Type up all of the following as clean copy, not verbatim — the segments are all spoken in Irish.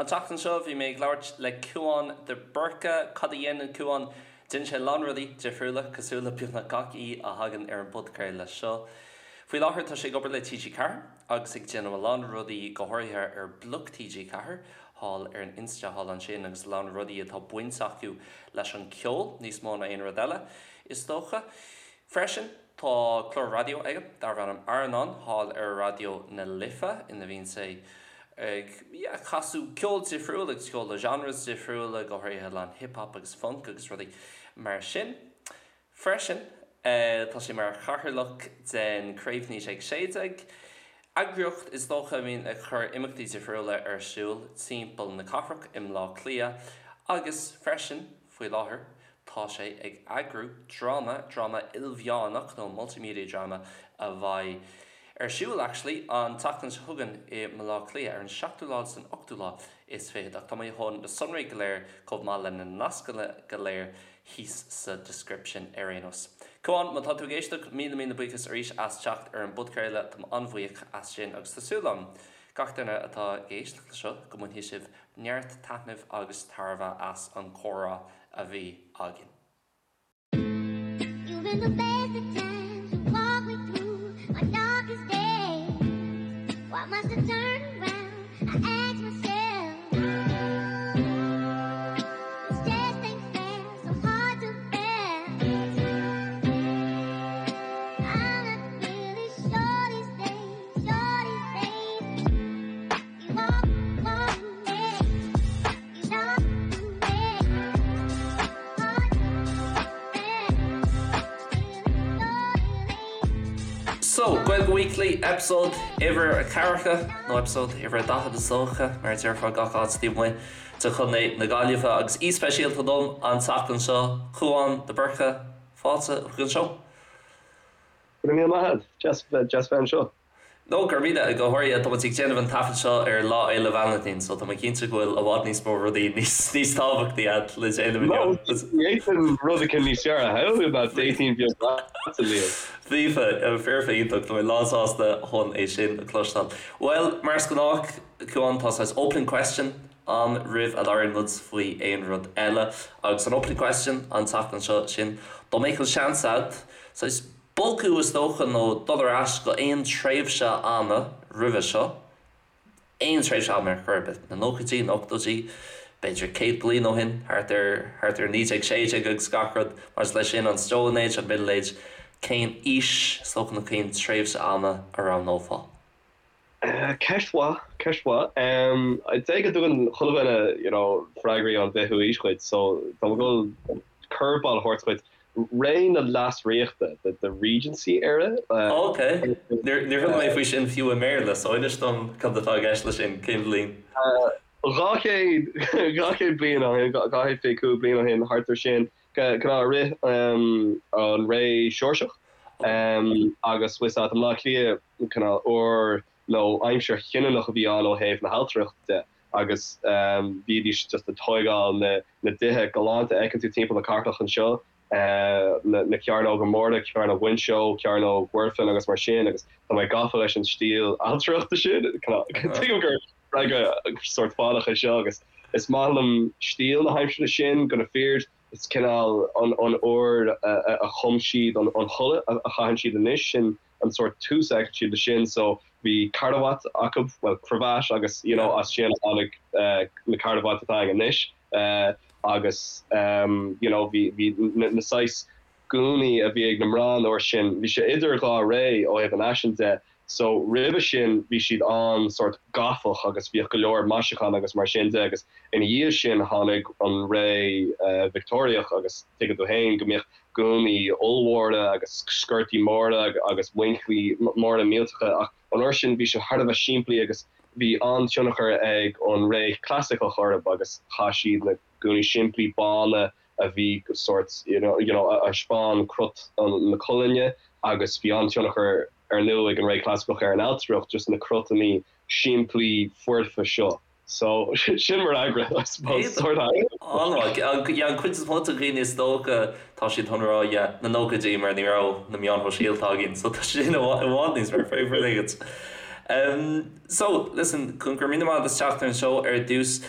An tseachtain seo bhí mé ag labhairt le Cúán de Búrca. Cad a dhéanann Cúán? Déanann sé a lán rudaí difriúla, cosúil le beagnach gach aoi a thagann ar an bpodchraoladh seo. Faoi láthair tá sé ag obair le TG4 agus ag déanamh a lán rudaí, go háirithe ar Bloc TG4 thall ar an Insta thall ansin agus a lán rudaí atá baint acu leis an ceol níos mó ná aon rud eile, is dócha. Freisin, tá clár raidió aige darb ainm Airneán thall ar Raidió na Life ina bhíonn sé ag, yeah, casadh ceol difriúil agus ceol de genres difriúla, go háirithe a lán hip hop agus funk agus rudaí mar sin. Freisin, tá sé mar chathaoirleach den Craobh 1916, eagraíocht is dócha a bhíonn ag cur imeachtaí difriúla ar siúl timpeall na cathrach i mBleá Cliath agus freisin, faoi láthair, tá sé ag eagrú dráma, dráma ilmheánach nó multimedia drama a bheidh ar siúl actually an tseachtain seo chugainn i mBleá Cliath ar an seachtú lá agus an ochtú lá is fichead ach tá mé chun na sonraí go léir chomh maith le na nascanna go léir thíos sa description ar aon nós. Cúán, má tá tú ag éisteacht, míle míle buíochas arís as teacht ar an bpodchraoladh, táim an-bhuíoch as sin agus tá súil agam gach duine atá ag éisteacht le seo go mbainfidh sibh neart taitnimh agus tairbhe as an chomhrá a bhí againn. You've been the best of times to walk me through my darkest days. Why must I turn around? I ask myself. This just ain't fair, so hard to bear. I'm not really sure these days, sure these days. You walk, walk me, you know me. Hard to bear. So, Gaeilge Weekly, episode uimhir a ceathracha, nó episode uimhir a 40 is dócha, mar a déarfá gach áit taobh amuigh de Chontae na Gaillimhe, agus aoi speisialta dom an tseachtain seo, Cúán de Búrca, fáilte chuig an seó. Go raibh míle maith agat, deas deas bheith anseo. No, go raibh míle, go háirithe, tá muid ag déanamh an taifead seo ar Lá Fhéile Vailintín, so tá mé cinnte go bhfuil i bhfad níos mó rudaí níos níos tábhachtaí agat le déanamh inniu. No, d'fhéadfainn rud éicint níos fearr a shamhlú ná dating beag leatsa, Liam. Foirfe, foirfe iontach, tá mé lánsásta chun é sin a chloisteáil. Bhuel, mar is gnách, Cúán, tá saghas opening question ann roimh a labhraíonn muid faoi aon rud eile, agus an opening question an tseachtain seo sin, dá mbeadh an seans agat, saghas bogadh is dócha nó dul ar ais go aon tréimhse ama roimhe seo, aon tréimhse ama ar chor ar bith, na nóchaidí, na ochtóidí, b'fhéidir 100 bliain ó shin, thart ar, thart ar 1916 agus gach rud maidir leis sin, an Stone Age, an Middle Age, cén aois, is dócha, nó cén tréimhse ama a roghnófá? Ceist mhaith, ceist mhaith. I'd say go dtugann chuile dhuine, you know, freagraí ón bhfichiú aois dhuit, so tá mé ag dul curveball a thabhairt dhuit. Ré na Leasríochta, the, the Regency era. Ok. Níor, níor chuala mé faoi sin fiú i mBéarla, so inis dom cad atá i gceist leis sin, cén bhliain? 200, 200 bliain ó shin, 225 bliain ó shin, thart ar sin, cineál i rith an ré Seoirseach agus bhfuil a fhios agat i mBleá Cliath, cineál uair nó aimsir chinniúnach a bhí ann ó thaobh na hailtireachta de agus bhídís just ag tóigeáil na na dtithe galánta a fheiceann tú timpeall na cathrach anseo, na na cearnóga móra, Cearnóg Mhuinseo, Cearnóg Mhuirfean agus mar sin agus tá mé gafa leis an stíl ailtireachta sin. Tuigim gur freagra sórt fánach é seo agus is maith liom stíl na haimsire sin, go na fir is cineál an an uair a chum siad an an chulaith a chaitheann siad anois sin an sórt tús a fheiceann siad le sin so bhí carbhat acu, bhuel cravat agus you know as sin a tháinig na carbhait atá againn anois agus you know bhí bhí na saghas gúnaí a bhí ag na mná an uair sin, bhí sé idir dhá ré ó thaobh an fhaisin de so roimhe sin bhí siad an-sórt gotach agus bhíodh go leor maisiúchán agus mar sin de agus ina dhiaidh sin tháinig an ré Victeoiriach agus tuigeann tú féin go mbíodh gúnaí ollmhóra agus sciortaí móra agus muinchillí móra millteacha ach an uair sin bhí sé thar a bheith simplí agus bhí an-tionchar ag an ré chlasaiceach orthu agus chaith siad na gúnaí simplí bána a bhí sórt you know you know a thaispeáin crot na colainne agus bhí an-tionchar ar ndóigh ag an ré chlasaiceach ar an ailtireacht just na crotanna simplí foirfe seo. So, sin mo fhreagra, I suppose. Sort of. An-mhaith. Yeah, an chuid is mó de dhaoine is dócha, tá siad chun rá, yeah, na nóchaidí mar ní raibh na meáin shóisialta againn, so tá sin i bhfad níos fearr, fair play duit. So, listen, go raibh míle maith agat as teacht ar an seó ar dtús.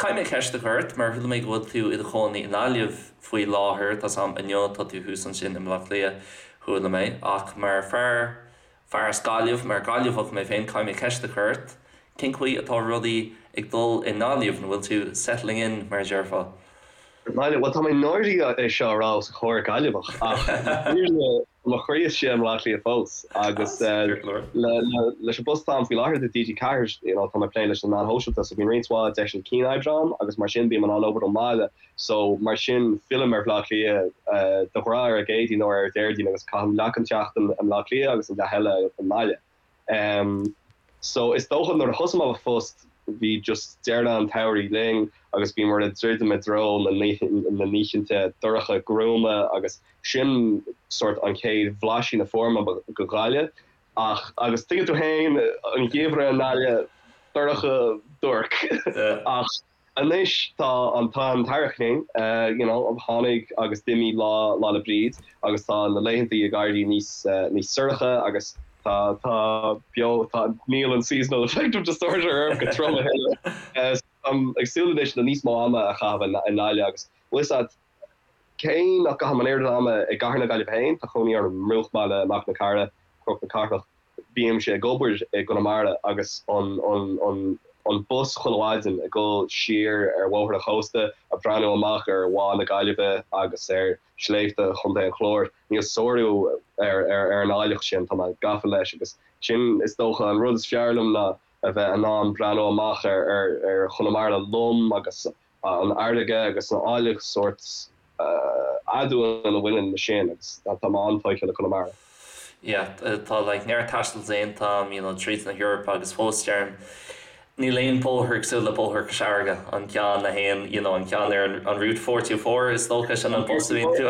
Caithfidh mé ceist a chur ort, mar chuala mé go bhfuil tú i do chónaí i nGaillimh faoi láthair, tá's a'm inniu tá tú thuas ansin i mBleá Cliath, chuala mé, ach mar fear, fear as Gaillimh, mar Gaillimheach mé féin, caithfidh mé ceist a chur ort, cén chaoi atá rudaí ag dul i nGaillimh, an bhfuil tú settling in, mar a déarfá? Bhuel, tá mé náirithe é seo a rá os comhair Gaillimheach, ach tá mo chroí istigh i mBleá Cliath fós agus leis an bpost atá agam faoi láthair do TG4, you know, tá mé ag plé leis na meáin shóisialta so bíonn roinnt mhaith deiseanna cianoibre agam agus mar sin bím in ann obair ón mbaile so mar sin fillim ar Bhleá Cliath de ghnáth ar an gCéadaoin nó ar an Déardaoin agus caithim leath den tseachtain i mBleá Cliath agus an leath eile i mbaile. Em so is dócha nuair a thosaigh mé mo phost bhí just deireadh an tsamhraidh linn agus bhíomar ag druidim i dtreo na na n-oícheanta dorcha gruama agus sin sort an chéad bhlaisín a fuair mé de Ghaillimh ach agus tuigeann tú féin an geimhreadh i nGaillimh dorcha duairc ach Anois tá an tá an t-earrach linn, you know, tháinig agus d'imigh Lá Lá 'le Bríd agus tá na laethanta ag éirí níos níos sorcha agus tá tá beo tá níl an seasonal affective disorder orm go trom a thuilleadh. So táim ag súil anois le níos mó ama a chaitheamh i nGaillimh agus bhfuil fhios a'd cé nach gcaithim an oiread ama i gcathair na Gaillimhe féin, tá cónaí orm i mbruachbhaile Machaire na Cathrach, Cnoc na Cathrach, Bímse ag obair i gConamara agus an an bus chuile mhaidin ag dul siar ar bhóthar an chósta, ag breathnú amach ar Bhá na Gaillimhe agus ar shléibhte Chontae an Chláir. Níl sárú ar ar an áilleacht sin, tá mé gafa leis agus sin is dócha an rud is fearr liom ná a bheith in ann breathnú amach ar ar Chonamara lom agus an fharraige agus an áilleacht sórt aduain a bhaineann le sin agus tá mé an-tógtha le Conamara. Yeah, tá like neart taistil déanta agam, you know, tríd na hEorpa agus fós deirim níl aon bóthar cosúil le bóthar Chois Fharraige, an ceann a théann, you know, an ceann ar an Route 424 is dócha sin an bus a bhíonn tú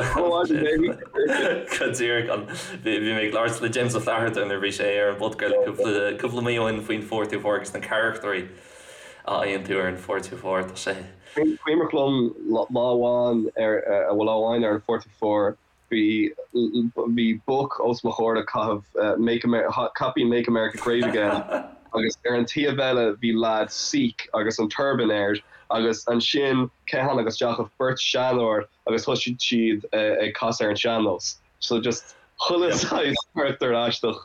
go díreach an bhí mé ag labhairt le James Ó Flatharta nuair a bhí sé ar an bpodchraoladh cúpla cúpla mí ó shin faoin 424 agus na carachtarí a fhaigheann tú ar an 424 tá sé. Cuimhneach liom lá amháin ar lá amháin ar an 424 bhí bhí boc os mo chomhair ag caitheamh Make Caipín Make America Great Again agus ar an taobh eile bhí leaid Sikh agus an turban air agus ansin cé tháinig isteach ach beirt seanóir agus thosaigh siad ag casadh ar an sean-nós so just chuile saghas carachtar aisteach.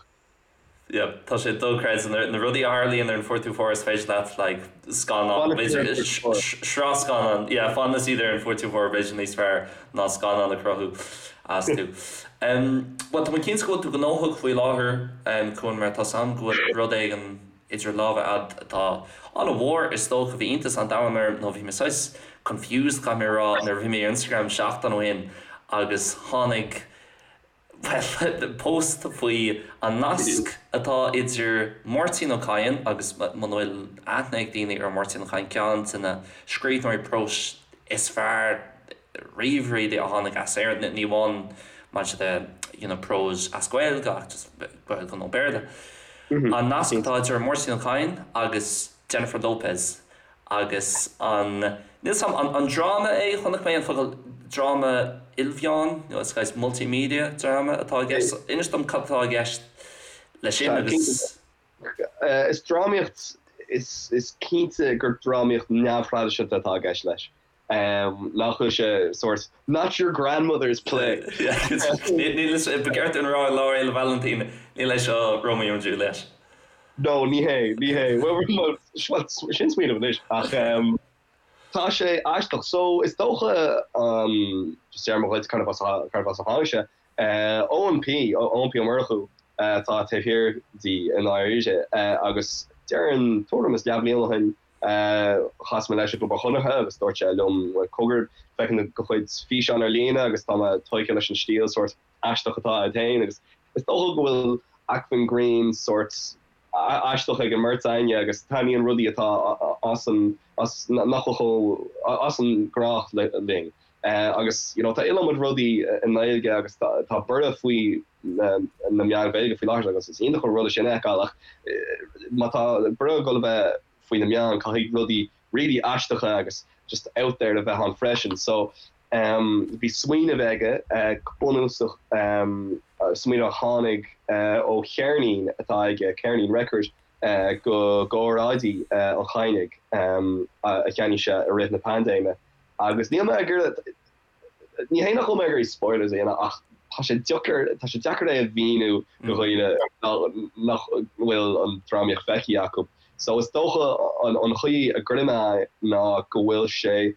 Yeah, tá sé dochreidte na rudaí a tharlaíonn ar an 424 is féidir leat like scannán b'fhéidir sraith scannán yeah fanann siad ar an 424 b'fhéidir níos fearr ná scannán a chruthú astu. Um, well tá mé cinnte go bhfuil tú gnóthach faoi láthair um, Cuan mar tá 's a'm go bhfuil rud éigin idir lámha a'd atá an-mhór is dócha bhí iontas an domhain orm nó bhí mé saghas confused caithfidh mé a rá nuair a bhí mé ar Instagram seachtain ó shin agus tháinig Bhuel, post faoi an nasc atá idir Máirtín Ó Cadhain agus, muna bhfuil aithne ag daoine ar Mháirtín Ó Cadhain, ceann de na scríbhneoirí próis is fearr riamh really a tháinig as Éirinn, ní amháin maidir le you know prós as Gaeilge ach just Gaeilge nó Béarla. An nasc atá idir Máirtín Ó Cadhain agus Jennifer Lopez Agus an, níl 's a'm, an dráma é? Chonaic mé an focal dráma ilmheán, nó is saghas multimedia drama atá i gceist. Inis dom cad atá i gceist leis sin agus. Is drámaíocht, is cinnte gur drámaíocht neamhthraidisiúnta atá i gceist leis. Nach bhfuil sé sórt not your grandmother's play. Níl, ba cheart dúinn a rá ar Lá Fhéile Vailintín, níl é seo Romeo and Juliet. No, ní hé, ní hé. Bhuel, sin smaoineamh anois, ach tá sé aisteach. So, is dócha, just déarfaidh mé dhuit cárb as a tháinig sé, Eoin P, Eoin P Ó Murchú atá taobh thiar di i ndáiríre, agus déarfainn tuairim is leathbhliain ó shin, chas mé leis i gClub an Chonartha agus dúirt sé liom, cogar, feicim do chuid físeán ar líne agus tá mé tógtha leis an stíl sórt aisteach atá agat féin agus is dócha go bhfuil acmhainn grinn sórt aisteach ag an mbeirt againne agus taitníonn rudaí atá as an as nach bhfuil chomh as an ngnách linn agus you know tá iliomad rudaí i nGaeilge agus tá tá borradh faoi na na meáin Ghaeilge faoi láthair agus is iontach an rud é sin a fheiceáil ach má tá borradh ag dul a bheith faoi na meáin caithfidh rudaí really aisteacha agus just out there a bheith ann freisin so Bhí smaoineamh aige go bunúsach. smaoineamh a tháinig ó cheirnín atá aige, ceirnín record, de óráidí an Chadhnaigh a cheannaigh sé i rith na paindéime. Agus níl mé ag iarraidh, ní hé nach bhfuil mé ag iarraidh spoilers a dhéanamh ach tá sé deacair, tá sé deacair é a mhíniú do dhaoine nach bhfuil an drámaíocht feicthe acu. So is dócha an chaoi a gcuirfidh mé é ná go bhfuil sé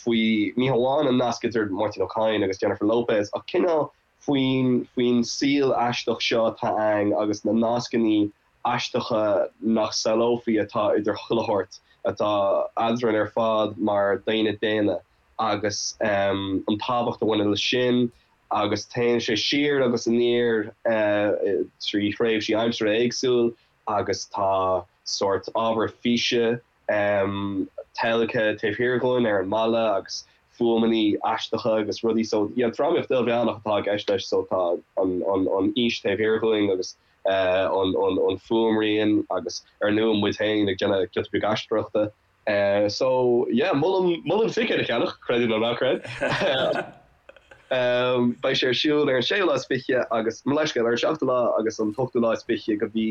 faoi, ní hamháin an nasc idir Máirtín Ó Cadhain agus Jennifer Lopez ach cineál faoin, faoin saol aisteach seo atá ann agus na nascannaí aisteacha nach samhlófaí atá idir chuile shórt atá eadrainn ar fad mar daoine daonna agus an tábhacht a bhaineann leis sin agus téann sé siar agus aniar trí thréimhsí aimsire éagsúil agus tá sórt ábhar físe teilgthe taobh thiar dhúinn ar an mballa agus fuaimeannaí aisteacha agus rudaí so yeah drámaíocht ilmheánach atá i gceist leis so tá an an an fhís taobh thiar dhúinn agus an an an fuaimrian agus ar ndóigh muid féin ag déanamh giota beag aisteoireachta so yeah molaim molaim ticéad a cheannach creid é nó ná creid. Beidh sé ar siúl ar an séú lá is fiche agus mo leithscéal ar an seachtú lá agus an t-ochtú lá is fiche de mhí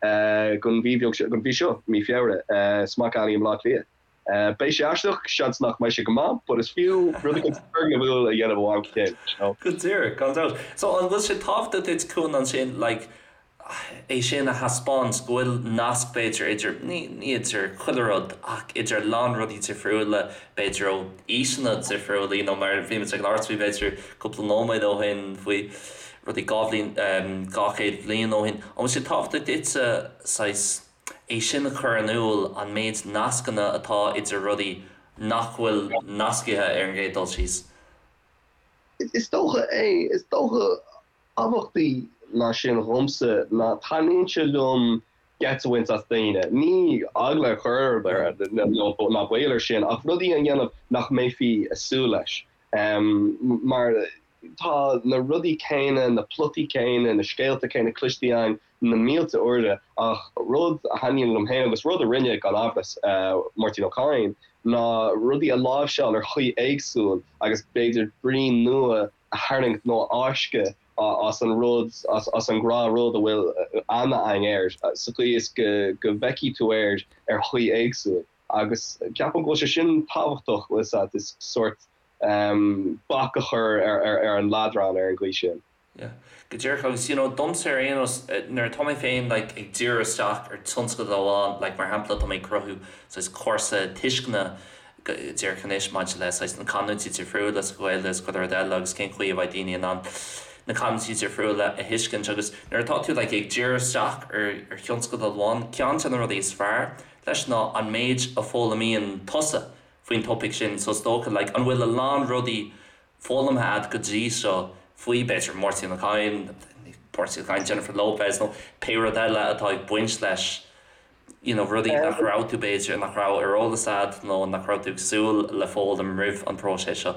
den mhí bheag seo, den mhí seo, mí Feabhra, Smock Alley i mBleá Cliath. Beidh sé aisteach, seans nach mbeidh sé go maith, but is fiú rud éicint turgnamhúil a dhéanamh ó am go chéile, you know. Go díreach, gan dabht. So an bhfuil sé tábhachtach duit, Cuan, ansin, like, é sin a thaispeáint, go bhfuil nasc b'fhéidir idir, ní idir chuile rud, ach idir a lán rudaí difriúla, b'fhéidir ó aoiseanna difriúla, you know, mar bhí muid ag labhairt faoi b'fhéidir cúpla nóiméad ó shin faoi rudaí 2 bhliain, 200 bliain ó shin. An bhfuil sé tábhachtach duitse saghas é sin a chur in iúl, an méid nascanna atá idir rudaí nach bhfuil nascaithe ar an gcéad dul síos? Is dócha é. Is dócha tábhachtaí ná sin dhomsa ná taitníonn sé liom geit a bhaint as daoine. Ní eagla a chur orthu ná baol air sin ach rudaí a dhéanamh nach mbeifí ag súil leis. Mar tá na rudaí céanna, na plotaí céanna, na scéalta céanna cloiste againn na mílte uaire ach rud a thaitníonn liom féin agus rud a rinne, gan amhras, Máirtín Ó Cadhain ná rudaí a láimhseáil ar chaoi éagsúil agus b'fhéidir brí nua a tharraingt nó a fháisceadh as an rud, as an ngnáthrud a bhfuil aithne againn air, sa chaoi is go bhfeicfidh tú air ar chaoi éagsúil. Agus ceapaim go bhfuil sé sin tábhachtach, bhfuil 'fhios a'd, is sórt bac a chur ar an leadrán ar an gcaoi sin. Yeah. Go díreach agus you know domsa ar aon nós nuair atá mé féin like ag díriú isteach ar tionscadal amháin like mar shampla tá mé ag cruthú saghas cúrsa tuisceana go díreach anois maidir le saghas na canúintí difriúla sa Ghaeilge agus chuile rud eile agus cén chaoi a bheidh daoine in ann na canúintí difriúla a thuiscint agus nuair atá tú like ag díriú isteach ar ar thionscadal amháin ceann de na rudaí is fearr leis ná an méid a foghlaimíonn tusa faoin topaic sin so is dócha like an bhfuil a lán rudaí foghlamtha a'd go dtí seo faoi b'fhéidir Máirtín Ó Cadhain, Máirtín Ó Cadhain, Jennifer Lopez nó pé rud eile atá ag baint leis, you know rudaí nach raibh tú b'fhéidir, nach raibh ar eolas a'd nó nach raibh tú ag súil le foghlaim roimh an bpróiseas seo?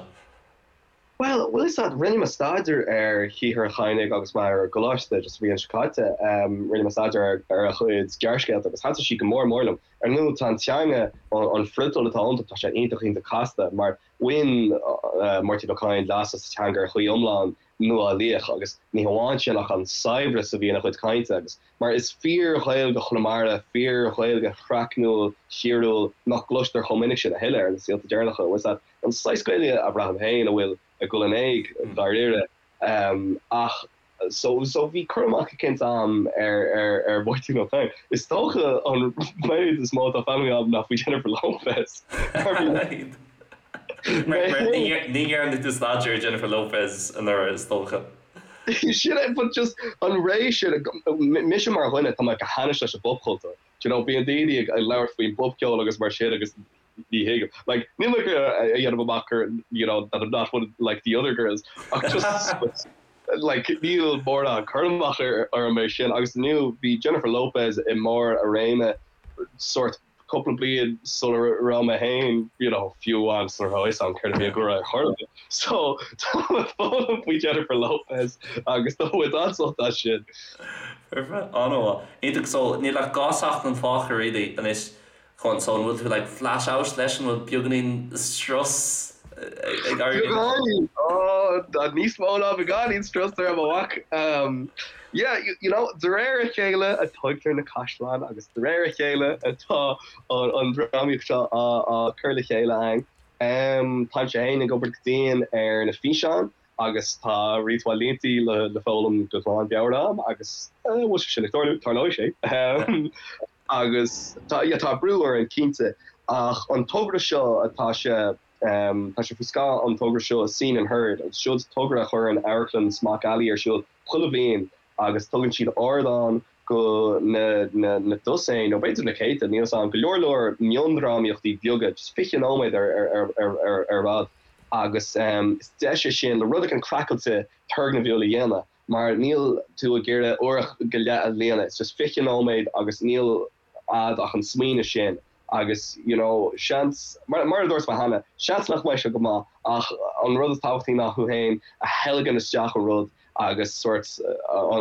Bhuel, bhfuil 'fhios a'd, rinne mé staidéar ar shaothar an Chadhnaigh agus mé ar an gcoláiste just an bhliain seo caite, rinne mé staidéar ar a chuid gearrscéalta agus thaitin siad go mór mór liom. Ar ndóigh, tá an teanga, an friotal atá iontu, tá sé iontach iontach casta mar Bhain Máirtín Ó Cadhain leas as an teanga ar chaoi iomlán nuálaíoch agus ní hamháin sin ach an saibhreas a bhí ina chuid cainte agus mar is fíor-Ghaeilge Chonamara, fíor-Ghaeilge chraicniúil, thíriúil nach gcloistear chomh minic sin a thuilleadh ar na saolta deireanacha, bhfuil 'fhios a'd, an saghas Gaeilge a bhraithim féin a bhfuil ag dul in éag, dáiríre. Ach So so bhí cur amach eicínt a'm ar ar ar Mháirtín Ó Cadhain. Is dócha an méid is mó atá foghlamtha a'm ná faoi Jennifer Lopez. Mar mar mar ní ní dhearna tú staidéar ar Jennifer Lopez anuraidh is dócha. Sin é but just an ré sin mise mar dhuine tá mé go hainnis leis an bpopchultúr. Do you know bíonn daoine ag labhairt faoin bpopcheol agus mar sin agus ní thuigim. Like níl mé ag a dhéanamh amach gur you know that I'm not one like the other girls ach just like níl mórán cur amach orm é sin agus inniu bhí Jennifer Lopez i mbarr a réime sórt cúpla bliain sula raibh mé féin you know fiú amháin sula raibh fhios a'm céard a bhí ag rá ar chor ar bith. So tá mé ag foghlaim faoi Jennifer Lopez agus tá muid an-sult as sin. Foirfe, an-mhaith. Iontach, so níl ach 2 seachtain fágtha really anois Chun, so an bhfuil tú like flash out leis, an bhfuil beagáinín strus ag éirí? Beagáinín! Oh! Tá níos mó ná beagáinín strus orm, a mhac. Yeah, you know, de réir a chéile a tógtar na caisleáin agus de réir a chéile atá an drámaíocht seo á cur le chéile againn. Táimse féin ag obair go dian ar na físeáin agus tá roinnt mhaith línte le foghlaim go glan mheabhair agam agus bhfuil sé sin ag tarlú? Tarlóidh sé. Agus tá, yeah, tá brú orainn cinnte ach an togra seo atá sé, tá sé faoi scáth an togra seo Scene and Heard agus seo togra a chuireann Amharclann Smock Alley ar siúl chuile bhliain agus tugann siad ardán go na na na dosaein nó b'fhéidir na céadta, níl 'fhios a'm, go leor leor miondrámaíochtaí beaga, just 20 nóiméad ar ar ar ar ar fhad agus is deis é sin le rud éigin craiceáilte turgnamhúil a dhéanamh mar níl tú ag iarraidh uair go leith a líonadh, it's just 20 nóiméad agus níl a'd ach an smaoineamh sin agus you know seans, mar mar a dúirt mé cheana, seans nach mbeidh sé go maith ach an rud is tábhachtaí ná thú féin a theilgean isteach i rud agus sórt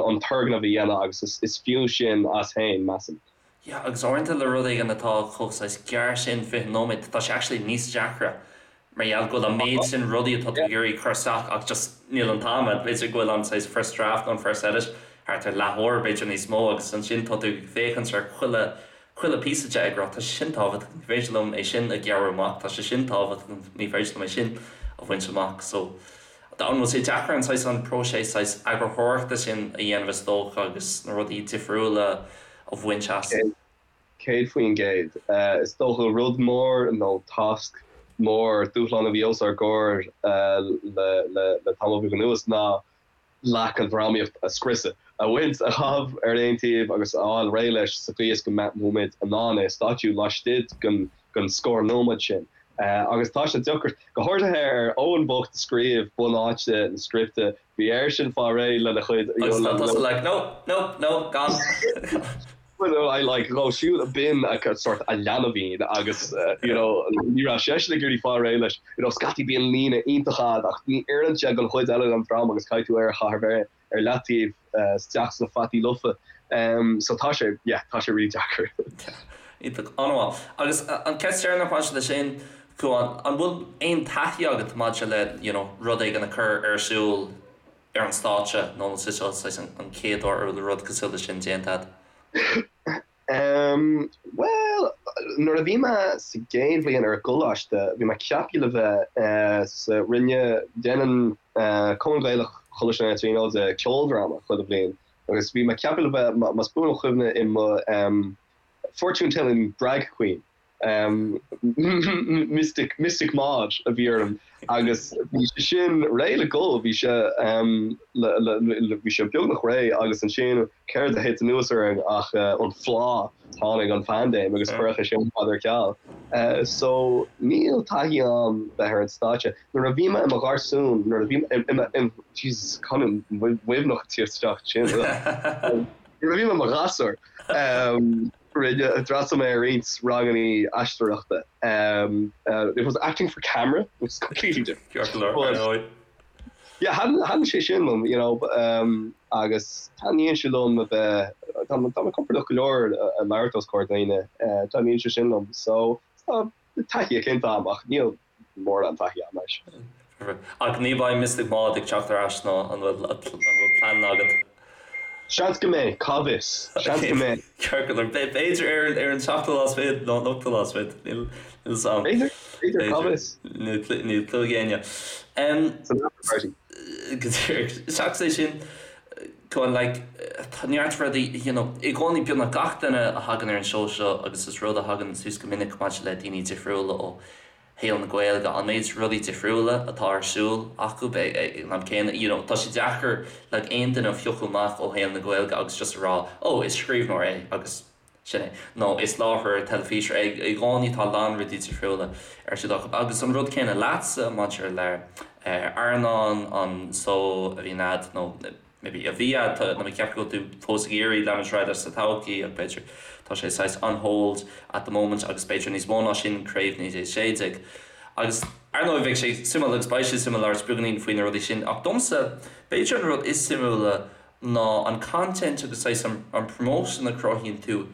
an turgnamh a dhéanamh agus is is fiú sin as féin, measaim. Yeah, agus uaireanta le rud éigin atá chomh saghas gearr sin, 20 nóiméad, tá sé actually níos deacra mar gheall go bhfuil an méid sin rudaí atá tú ag iarraidh cur isteach ach just níl an t-am agat. B'fhéidir go bhfuil an saghas first draft nó an first edit thart ar leathuair, b'fhéidir níos mó agus ansin tá tú ag féachaint ar chuile chuile píosa de ag rá tá sé sin tábhachtach, ní féidir liom é sin a ghearradh amach, tá sé sin tábhachtach, ní féidir liom é sin a bhaint amach. So an bhfuil sé deacair an saghas an próiseas saghas eagarthóireachta sin a dhéanamh is dócha agus na rudaí difriúla a bhaint as? 100%. Is dócha rud mór nó tasc mór, dúshlán a bhí os ár gcomhair le tamall beag anuas ná leac an drámaíocht a scriosadh, a bhaint, a chaitheamh ar aon taobh agus a fháil réidh leis sa chaoi is go mbeadh muid in ann é a stáitsiú laistigh den scór nóiméad sin. Agus tá sé deacair, go háirithe ar Eoin bocht a scríobh bunáite na scripte, bhí airsean fáil réidh lena chuid. Agus tá tusa like, no, no, no, gan. Well, I like dhó siúd b'in a sort a leanbhín agus you know ní raibh seisean ag iarraidh fáil réidh leis. You know scaití bíonn líne iontach a'd ach ní oireann sé don chuid eile den dráma agus caithfidh tú é a chaitheamh ar leataobh isteach sna fataí lofa. So tá sé, yeah, tá sé really deacair. Iontach, an-mhaith. Agus an ceist deireanach maidir leis sin, Cuán, an bhfuil aon taithí agat maidir le you know rud éigin a chur ar siúl ar an stáitse nó an é seo saghas an chéad uair a bhfuil rud cosúil leis sin déanta agat? Em, bhuel, nuair a bhí mé sa gcéad bhliain ar an gcoláiste, bhí mé ceaptha le bheith eh sa, rinne, déanann eh Cumann Gaelach Choláiste na Tríonóide ceoldráma chuile bhliain agus bhí mé ceaptha le bheith, más buan mo chuimhne, i mo em fortune telling drag queen. Mystic, Mystic Maud a bhí orm agus bhí sé sin réidh le dul, bhí sé bhí sé beagnach réidh agus ansin céard a thit anuas orainn ach an phlá, tháinig an phaindéim agus cuireadh é sin ar fad ar ceal. So níl taithí a'm bheith ar an stáitse. Nuair a bhí mé i mo gharsún, nuair a bhí mé i mo, Jesus, canúint Mhuimhneach ag tíocht isteach ansin. Nuair a bhí mé i mo ghasúr, Rinne, d'fhreastail mé ar roinnt ranganna aisteoireachta. It was acting for camera, which is completely different. Ceart go leor, ar ndóigh. Yeah, thaitin sé sin liom, you know, agus taitníonn sé liom a bheith, tá mé compordach go leor ag labhairt os comhair daoine, taitníonn sé sin liom. So, tá taithí eicínt a'm ach níl mórán taithí a'm leis. Ach ní bheidh Mystic Maud ag teacht ar ais nó an bhfuil an bhfuil plean agat? Seans go mbeidh, cá bhfios? Seans go mbeidh. Ceart go leor. B'fhéidir ar ar an seachtú lá is fichead nó an ochtú lá is fichead. Níl fhios a'm. B'fhéidir, b'fhéidir, cá bhfios? Níl clue ag éinne. San after party. Go díreach. Seachas é sin, go on like, tá neart rudaí, you know, i gcónaí beagnach gach duine a thagann ar an seó seo agus is rud a thagann suas go minic maidir le daoine difriúla ó shaol na Gaeilge, an méid rudaí difriúla atá ar siúl acu ag an am céanna, you know, tá sé deacair like aon duine a phiocadh amach ó shaol na Gaeilge agus just a rá oh is scríbhneoir é agus sin é nó is láithreoir teilifíse é, i gcónaí tá a lán rudaí difriúla ar siúl acu. Agus an rud céanna leatsa maidir le Airneán, an seó a bhíonn a'd nó maybe a bhí a'd, tá mé ag ceapadh go bhfuil tú fós ag iarraidh leanúint ar aghaidh leis sa todhchaí ach b'fhéidir tá sé saghas on hold at the moment agus b'fhéidir níos mó ná sin Craobh 1916. Agus ar ndóigh bheadh sé suimiúil agus beidh sé suimiúil labhairt beagáinín faoi na rudaí sin ach domsa b'fhéidir an rud is suimiúla ná an content agus saghas an promotion a chruthaíonn tú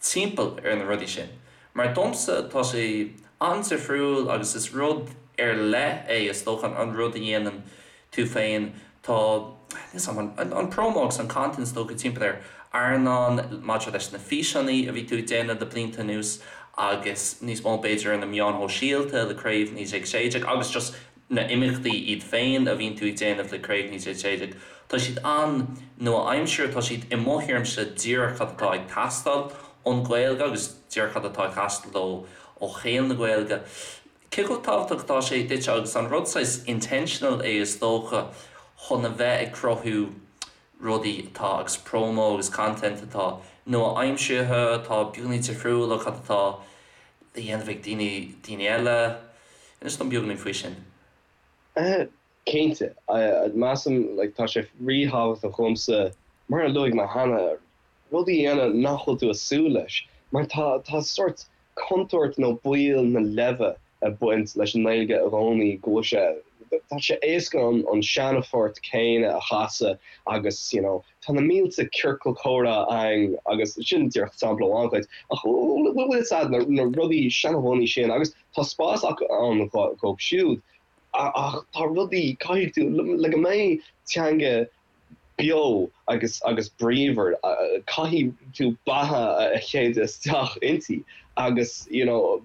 timpeall ar na rudaí sin. Mar domsa tá sé an-difriúil agus is rud ar leith é is dócha an rud a dhéanann. tú féin, tá, níl 'fhios a'm, an, an promo agus an content is dócha timpeall ar Airneán maidir leis na físeanna a bhí tú ag déanamh le blianta anuas agus níos mó b'fhéidir ar na meáin shóisialta le Craobh 1916 agus just na imeachtaí iad féin a bhíonn tú ag déanamh le Craobh 1916, tá siad an-nua-aimseartha, tá siad i mo thuairimse díreach cad atá ag teastáil ón Ghaeilge agus díreach cad atá ag teastáil ó ó shaol na Gaeilge. Cé chomh tábhachtach atá sé duit agus an rud saghas intentional é is dócha chun a bheith ag cruthú rudaí atá agus promo agus content atá nua-aimseartha, atá beagáinín difriúil ó cad atá le dhéanamh ag daoine daoine eile. Inis dom beagáinín faoi sin. Cinnte. Measaim like tá sé ríthábhachtach dhomsa, mar a luaigh mé cheana, rudaí a dhéanamh nach bhfuil tú ag súil leis. Mar tá tá sórt contúirt nó baol na leimhe ag baint leis an nGaeilge i gcónaí, go bhfuil sé, tá sé éasca an an seanphort céanna a chasadh agus you know tá na mílte ciorcal comhrá againn agus sin díreach sampla amháin dhuit ach bhfuil fhios a'd na na rudaí seanbhunaithe sin agus tá spás acu ann dhóibh siúd ach tá rudaí, caithfidh tú, le go mbeidh teanga beo agus agus bríomhar, caithfidh tú beatha a shéideadh isteach inti agus you know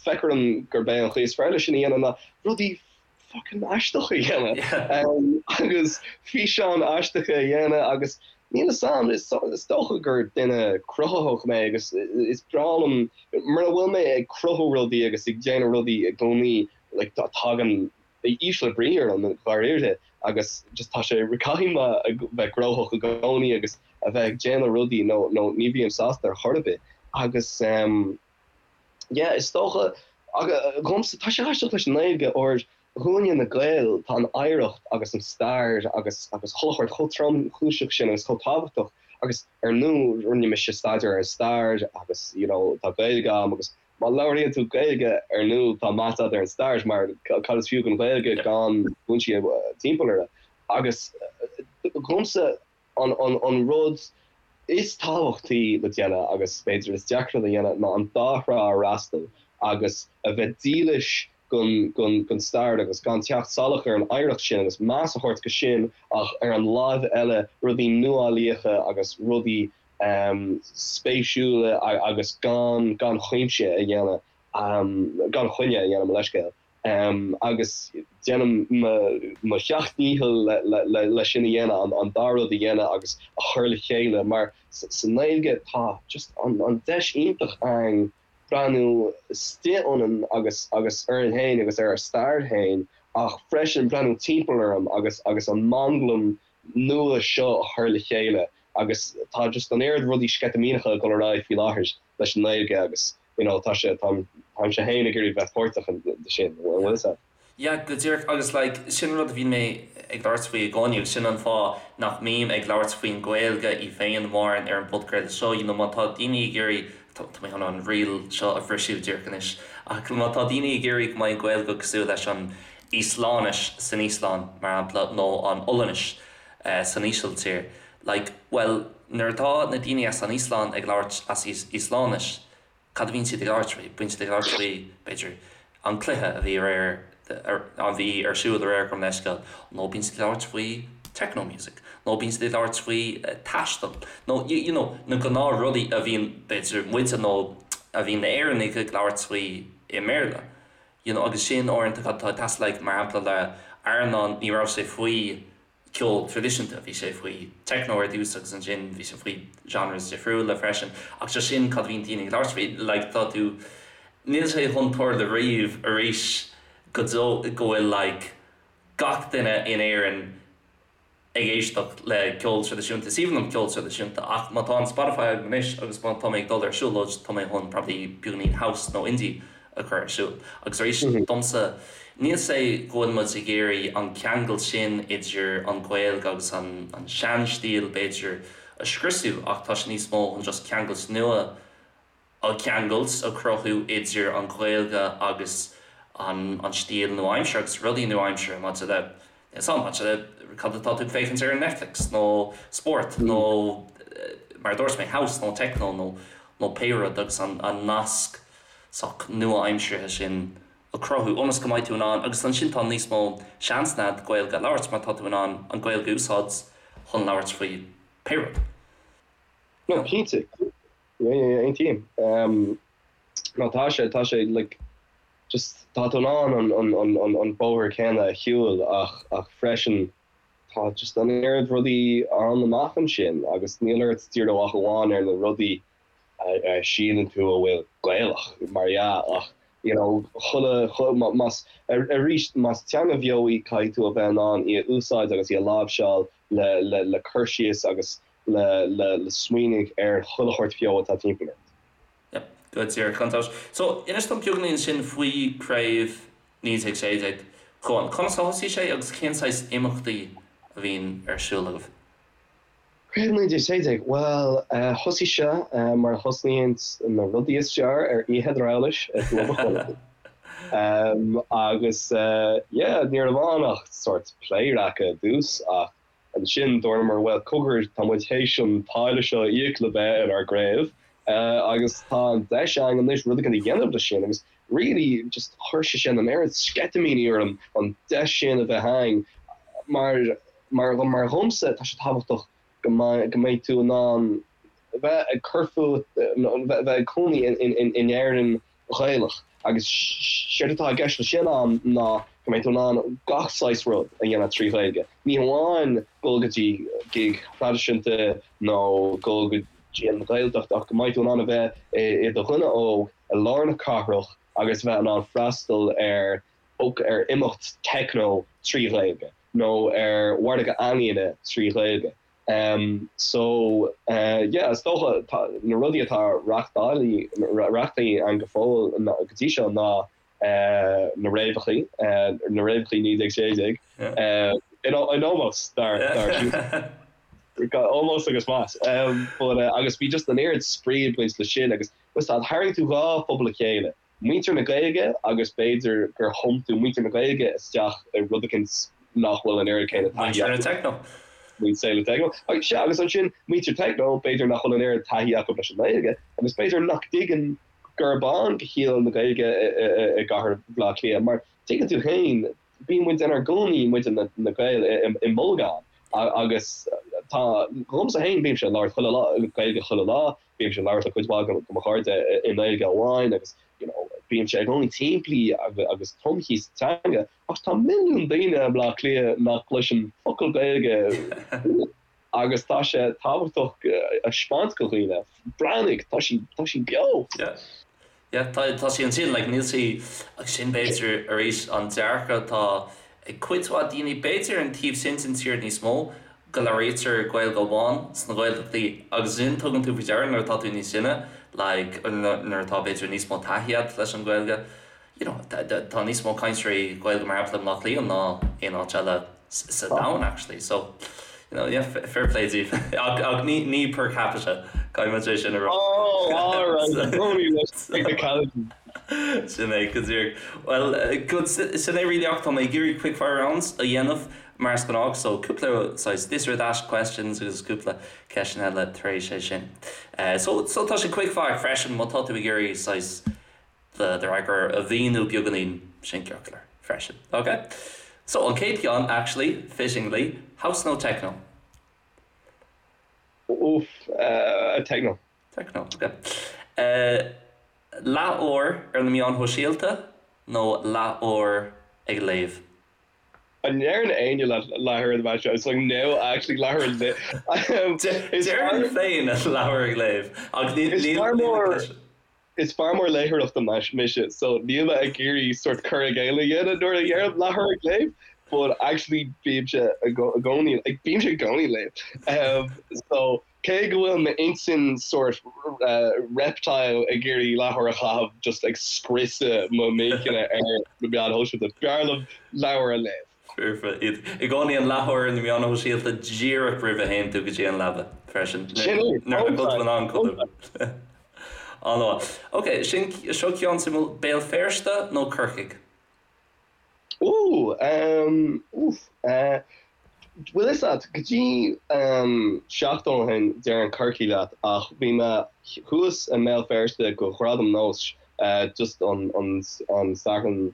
feictear dom gurb é an chaoi is fearr leis sin a dhéanamh ná rudaí fucking aisteacha a dhéanamh agus físeáin aisteacha a dhéanamh agus níl fhios a'm, is dócha gur duine cruthaitheach mé agus is breá liom mura bhfuil mé ag cruthú rudaí agus ag déanamh rudaí i gcónaí like tagann ísle brí orm dháiríre agus just tá sé caithfidh mé a bheith gnóthach i gcónaí agus a bheith ag déanamh rudaí nó nó ní bhím sásta ar chor ar bith agus ehm yeah is dócha agus dhomsa tá sé aisteach leis an nGaeilge óir dhúinne na Gaeil tá an oidhreacht agus an stair agus agus chuile shórt chomh tromchúiseach sin agus chomh tábhachtach agus ar ndóigh rinne mise staidéar ar an stair agus you know tá Gaeilge agam agus Má labhraíonn tú Gaeilge, ar ndóigh, tá meas agat ar an stair, mar cad is fiú don Ghaeilge gan foinsí timpeall uirthi? Agus dhomsa, an rud is tábhachtaí le déanamh, agus b'fhéidir is deacra le dhéanamh, ná an dá thrá a fhreastal agus a bheith dílis don stair agus gan teacht salach ar an oidhreacht sin agus meas a thabhairt go sin ach ar an láimh eile rudaí nuálaíocha agus rudaí spéisiúla agus gan gan chuimse a dhéanamh, gan choinne a dhéanamh, mo leithscéal. Agus déanaim mo sheacht ndícheall le sin a dhéanamh, an dá rud a dhéanamh agus a chur le chéile mar sa nGaeilge tá just an deis iontach againn breathnú istigh ionainn agus agus orainn féin agus ar ár stair féin ach freisin breathnú timpeall orainn agus agus an manglam nua seo a chur le chéile agus tá just an oiread rudaí sceitimíneacha ag dul ar aghaidh faoi láthair leis an nGaeilge agus you know tá sé táim táimse féin ag iarraidh bheith páirteach de sin, an bhfuil fhios a'd? Yeah, go díreach agus like sin rud a bhíonn mé ag labhairt faoi i gcónaí agus sin an fáth nach mbím ag labhairt faoin Ghaeilge í féin mórán ar an bpodchraoladh seo, you know má tá daoine ag iarraidh, tá mé chun an riail seo a bhriseadh díreach anois, ach má tá daoine ag iarraidh go mbeidh an Ghaeilge cosúil leis an Íoslainnis san Íoslainn, mar shampla, nó an Ollainnis san Ísiltír, like, bhuel nuair atá na daoine as an Íoslainn ag labhairt as Íoslainnis, Cad a bhíonn siad ag labhairt faoi? Bíonn siad ag labhairt faoi, b'fhéidir, an cluiche a bhí aréir, a bhí ar siúl aréir, gabh mo leithscéal, nó bíonn siad ag labhairt faoi techno music, nó bíonn siad ag labhairt faoi taisteal, nó you know, na gnáthrudaí a bhíonn, b'fhéidir, muide nó a bhíonn na Éireannaigh ag labhairt faoi i mBéarla. You know, agus sin uaireanta cad atá ag teastáil, like, mar shampla le Airneán, ní raibh sé faoi ceol traidisiúnta, bhí sé faoi techno ar dtús agus ansin bhí sé faoi genres difriúla freisin ach just sin cad a bhíonn daoine ag labhairt faoi, like tá tú, níl sé chun tarlú riamh arís go deo go bhfuil like gach duine in Éirinn ag éisteacht le ceol traidisiúnta, is aoibhinn liom ceol traidisiúnta ach má tá an Spotify agam anois agus má tá mé ag dul ar siúlóid tá mé chun probably beagáinín house nó indie a chur ar siúl. Agus arís, domsa, níl sé go bhfuil muid ag iarraidh an ceangal sin idir an Ghaeilge agus an sean-stíl, b'fhéidir, a scriosadh ach tá sé níos mó chun just ceangailt nua a cheangailt, a chruthú idir an Ghaeilge agus an stíl nua-aimseartha agus rudaí nua-aimseartha maidir le, níl 's a'm, maidir le cad atá tú ag féachaint ar ar Netflix nó spórt nó mar a dúirt mé, house nó techno nó pé rud agus an nasc sách nua-aimseartha sin. A chruthú ionas go mbeidh tú in ann agus ansin tá níos mó seansanna agat Gaeilge a labhairt mar tá tú in ann an Ghaeilge a úsáid chun labhairt faoi pé rud. No, cinnte. Yeah, yeah, yeah, aontaím. Um, no, tá sé, tá sé, like, just, tá tú in ann an, an, an, an, an bóthar céanna a shiúl ach, ach freisin tá just an oiread rudaí ann amach ansin agus níl ort díriú ach amháin ar na rudaí a síleann tú a bhfuil Gaelach, mar dhea, ach you know chuile, más, arís, más teanga bheo í caithfidh tú a bheith in ann í a úsáid agus í a láimhseáil le, le, le cur síos agus le, le, le smaoineamh ar chuile shórt bheo atá timpeall ort. Yep, go díreach, gan dabht. So, inis dom beagáinín ansin faoi Craobh 1916, Cuán. Conas a thosaigh sé agus cén saghas imeachtaí a bhíonn ar siúl agaibh? Craobh 1916, bhuel, thosaigh sé mar a thosnaíonn na rudaí is fearr, ar oíche Dhrabhlais i gClub an Chonartha. Agus yeah, ní raibh ann ach sórt pléaráca i dtús ach ansin dúramar, bhuel, cogar, tá muid théis an táille seo a íoc le bheith inár gcraobh agus tá an deis againn anois rud éigin a dhéanamh leis sin agus really just chuir sé sin an oiread sceitimíní orm an deis sin a bheith againn mar Mar mar dhomsa, tá sé tábhachtach go mbeidh go mbeidh tú in ann bheith ag cur fút nó bheith ag cónaí in Éirinn Ghaelach agus séard atá i gceist leis sin a'm ná go mbeidh tú in ann gach saghas rud a dhéanamh trí Ghaeilge. Ní hamháin dul go dtí gig thraidisiúnta nó dul go dtí an Ghaeltacht ach go mbeidh tú in ann a bheith i do dhuine óg i lár na cathrach agus bheith in ann freastal ar ar imeacht techno trí Ghaeilge. nó ar mhargadh ealaíne trí Ghaeilge. So yeah, is dócha tá na rudaí atá reachtáilte againn go fóill go dtí seo ná na réabhachaí, na réabhachaí 1916, in ómós dár ómós agus meas. But agus bhí just an oiread spraoi ag baint leis sin agus tharraing tú dhá phobal le chéile. muintir na Gaeilge agus b'fhéidir gur thum tú muintir na Gaeilge isteach i rud eicínt nach bhfuil an oiread céanna taithí acu. Muintir na Techno. Muintir na Techno. Sea, agus ansin muintir Techno, b'fhéidir nach bhfuil an oiread taithí acu leis an nGaeilge agus b'fhéidir nach dtuigeann gurb ann do shaol na Gaeilge i gcathair Bhaile Átha Cliath mar tuigeann tú féin, bíonn muid inár gcónaí, muid na Gaeil, i mbolgán agus tá, dhomsa féin, bímse ag labhairt chuile lá, Gaeilge chuile lá, Bímse ag labhairt le cuid mhaith de mo chairde i nGaeilge amháin agus you know bímse i gcónaí timplí agus tumtha sa teanga ach tá milliún daoine i mBleá Cliath nach gcloiseann focal Gaeilge agus tá sé tábhachtach a 'speáint do dhaoine, breathnaigh, tá sí, tá sí beo! Yeah. Yeah, tá, tá sí ansin, like níl sí, agus sin b'fhéidir arís an dearcadh atá ag cuid mhaith daoine, b'fhéidir an taobh sin den tír níos mó, go labhraítear Gaeilge amháin sna Gaeltachtaí agus sin tugann tú faoi deara nuair atá tú níos sine, like nuair atá b'fhéidir níos mó taithí agat leis an Ghaeilge, you know, tá níos mó cainteoirí Gaeilge mar shampla i mBleá Cliath ná aon áit eile sa domhan actually so you know yeah fair play daoibh ach ach ní ní per capita caithfidh muid é sin a rá. Oh alright Tony leis technicality. Sin é go díreach. Well good sin é really ach tá mé ag iarraidh quick fire rounds a dhéanamh mar is gnách so cúpla saghas this or that questions agus cúpla ceisteanna eile tar éis é sin. So so tá sé quick fire freisin má tá tú ag iarraidh saghas do d'fhreagra a mhíniú beagáinín sin ceart go leor freisin. Ok? So, an chéad cheann, actually, fittingly, house nó techno? Oof, techno. Techno, ok. Leathuair ar na meáin shóisialta nó leathuair ag léamh? An ndeireann éinne leat leathuair ar na meáin seo? It's like no, actually leathuair ag léamh. Déarfainn féin leathuair ag léamh ach níl. Is fear mór léitheoireachta mise so níl mé ag iarraidh sort cur i gcéill a dhéanamh nuair a dheirim leathuair ag léamh but actually bímse i gcónaí like bímse i gcónaí ag léamh. So cé go bhfuil m'intinn sort reptile ag iarraidh leathuair a chaitheamh just ag scriosadh mo m'inchinne ar na meáin shóisialta, b'fhearr liom leabhar a léamh. Foirfe. Iad i gcónaí an leathuair ar na meáin shóisialta díreach roimh a théann tú go dtí an leaba freisin. Sin é. Nuair nach bhfuil tú in ann codladh. An-mhaith. Ok, sin, seo ceann suimiúil, Béal Feirste nó Corcaigh? Ooh, um, oof, eh, bhfuil fhios a't, go dtí, um, seachtain ó shin déarfainn Corcaigh leat ach bhí mé thuas i mBéal Feirste go Ghradam Nós. just an an Satharn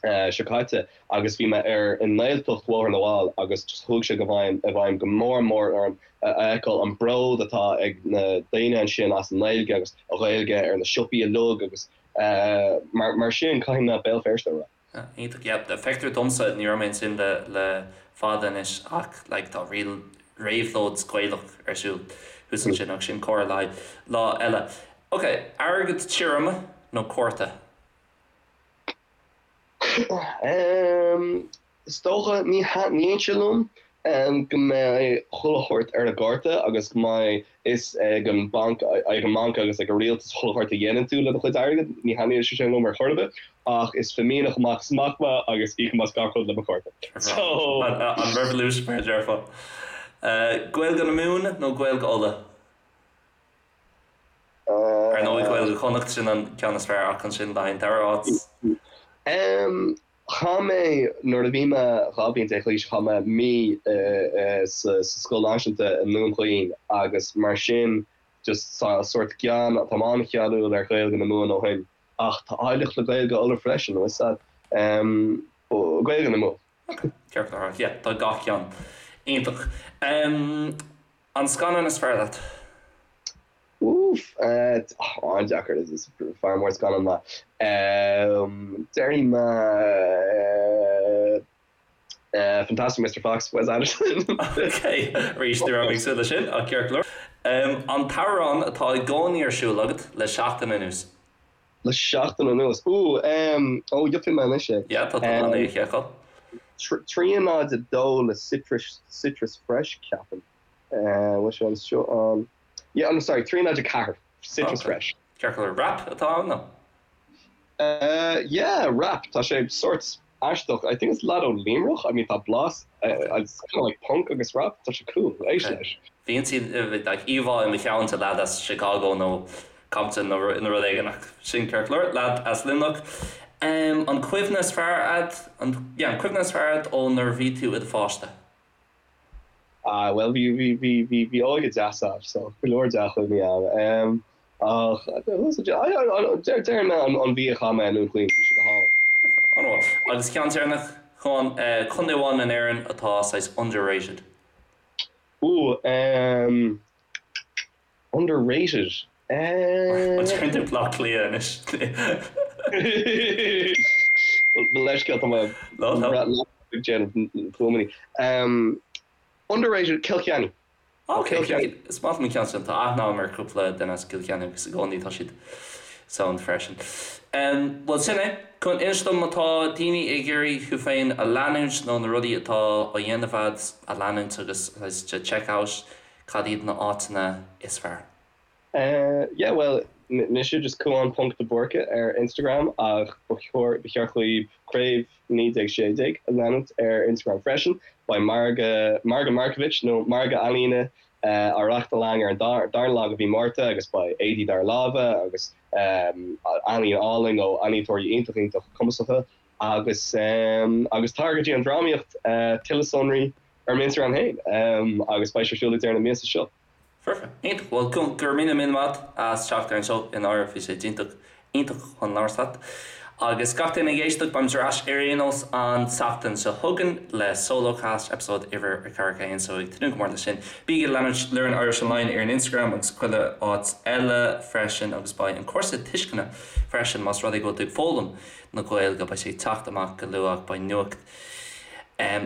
seo caite agus bhí mé ar i nGaeltacht Bhóthar na bhFál agus just chuaigh sé go bhfeidhm i bhfeidhm go mór mór orm a fheiceáil an bród atá ag na daoine ansin as an nGaeilge agus an Ghaeilge ar na siopaí uilig agus mar mar sin caithfidh mé Béal Feirste a rá. Iontach, yeah. Feictear domsa, ní raibh mé ansin le le fada anois ach like tá real réabhlóid Gaelach ar siúl thuas ansin ach sin comhrá le haghaidh lá eile. Ok, airgead tirim nó cárta? Is dócha, ní thaitníonn sé liom go mbeidh chuile shórt ar an gcárta agus go mbeidh fhios ag an banc, ag an mbanc agus ag an rialtas chuile shórt a dhéanann tú le do chuid airgid. Ní thaitníonn sé sin liom ar chor ar bith ach is fimíneach amach is amach mé agus íocaim as gach rud le mo chárta. So. An revolution mar a déarfá. Gaeilge na Mumhan nó Gaeilge Uladh? Ar ndóigh Gaeilge Chonnacht, sin an ceann is fearr ach ansin le haghaidh an dara háit. Chaith mé, nuair a bhí mé 12 bliain d'aois, chaith mé mí sa scoil náisiúnta i nDún Chaoin agus mar sin just sórt gean, táim an-cheanúil ar Ghaeilge na Mumhan ó shin ach tá áilleacht le Gaeilge Uladh freisin, bhfuil a fhios a'd. Gaeilge na Mumhan. Ok, ceart go leor, yeah, tá gach ceann iontach. An scannán is fearr leat? Oof, an-deacair, is fear mór scannán mé. Déarfaidh mé Fantastic Mister Fox, Wes Anderson. Ok, arís ní raibh mé ag súil leis sin, ach ceart go leor. An t-amhrán atá i gcónaí ar siúl agat le seachtain anuas? Le seachtain anuas? Ooh, ó, gheobhaidh mé anois é. Yeah, tá tú in ann é a sheiceáil. 3 0 2 le Citrus, Citrus Fresh, ceapaim. Bhfuil sé anseo an, yeah, oh sorry, 3 0 4, Citrus Fresh. Ceart go leor, rap atá ann nó? Yeah, rap, tá sé sórt aisteach, I think it's lad ó Luimneach, I mean tá blas, it's kind of like punk agus rap, tá sé cool, éist leis. Bhí like íomhá i mo cheann de leaid as Chicago nó Compton nó rud éigin ach sin ceart go leor, leaid as Luimneach. An cuimhne is fearr a'd, an, yeah, an cuimhne is fearr a'd ó nuair a bhí tú i do pháiste? Ah, bhuel, bhí, bhí, bhí, bhí, bhí óige deas a'm, so go leor dea-chuimhní a'm. Ach, déarfaidh mé an mhí a chaith mé i nDún Chaoin, bhí sé go hálainn. An-mhaith. Agus ceann deireanach, Cuán, contae amháin in Éirinn atá saghas underrated? Ooh, um, underrated? An ndéarfaidh tú Bleá Cliath anois? Mo leithscéal, tá mé ag déanamh fuaimeanna. Underrated, Cill Chainnigh. Ok, is maith liom an ceann sin. Tá aithne agam ar chúpla duine as Cill Chainnigh agus i gcónaí tá siad sound freisin. Bhuel sin é. Cuán, inis dom má tá daoine ag iarraidh thú féin a leanúint nó na rudaí atá á dhéanamh a'd a leanúint agus to check out cad iad na áiteanna is fearr? Yeah bhuel mise just Cuán ponc de Búrca ar Instagram ach ba chóir ba cheart dhaoibh Craobh 1916 a leanúint ar Instagram freisin. Beidh margadh Margadh Markievicz nó Margadh Ealaíne á reáchtáil againn ar an darna lá de mhí Márta agus beidh éadaí dár lámha agus ealaín álainn ó ealaíontóirí iontach iontach cumasacha agus agus tar go dtí an drámaíocht tuilleadh sonraí ar m'Instagram féin agus beidh sé ar siúl ag deireadh na míosa seo. Foirfe. Iontach. Bhuel, go raibh míle míle maith agat as teacht ar an seó i ndáiríre bhí sé iontach, iontach chun labhairt leat. Agus gach duine ag éisteacht, beimid ar ais ar aon nós an tseachtain seo chugainn le Solo Cast, episode uimhir a 41, so ag tnúth go mór leis sin. Bígí ag leanúint Learn Irish Online ar an Instagram agus chuile áit eile freisin agus beidh an cúrsa tuisceana freisin más rud é go bhfuil tú ag foghlaim na Gaeilge, beidh sé ag teacht amach go luath, beidh nuacht.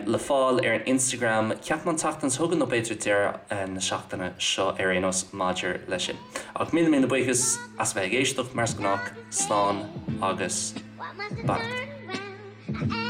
le fáil ar an Instagram, ceapaim an tseachtain seo chugainn nó b'fhéidir deireadh na seachtaine seo ar aon nós maidir leis sin. Ach míle míle buíochas as a bheith ag éisteacht, mar is gnách, slán agus beannacht.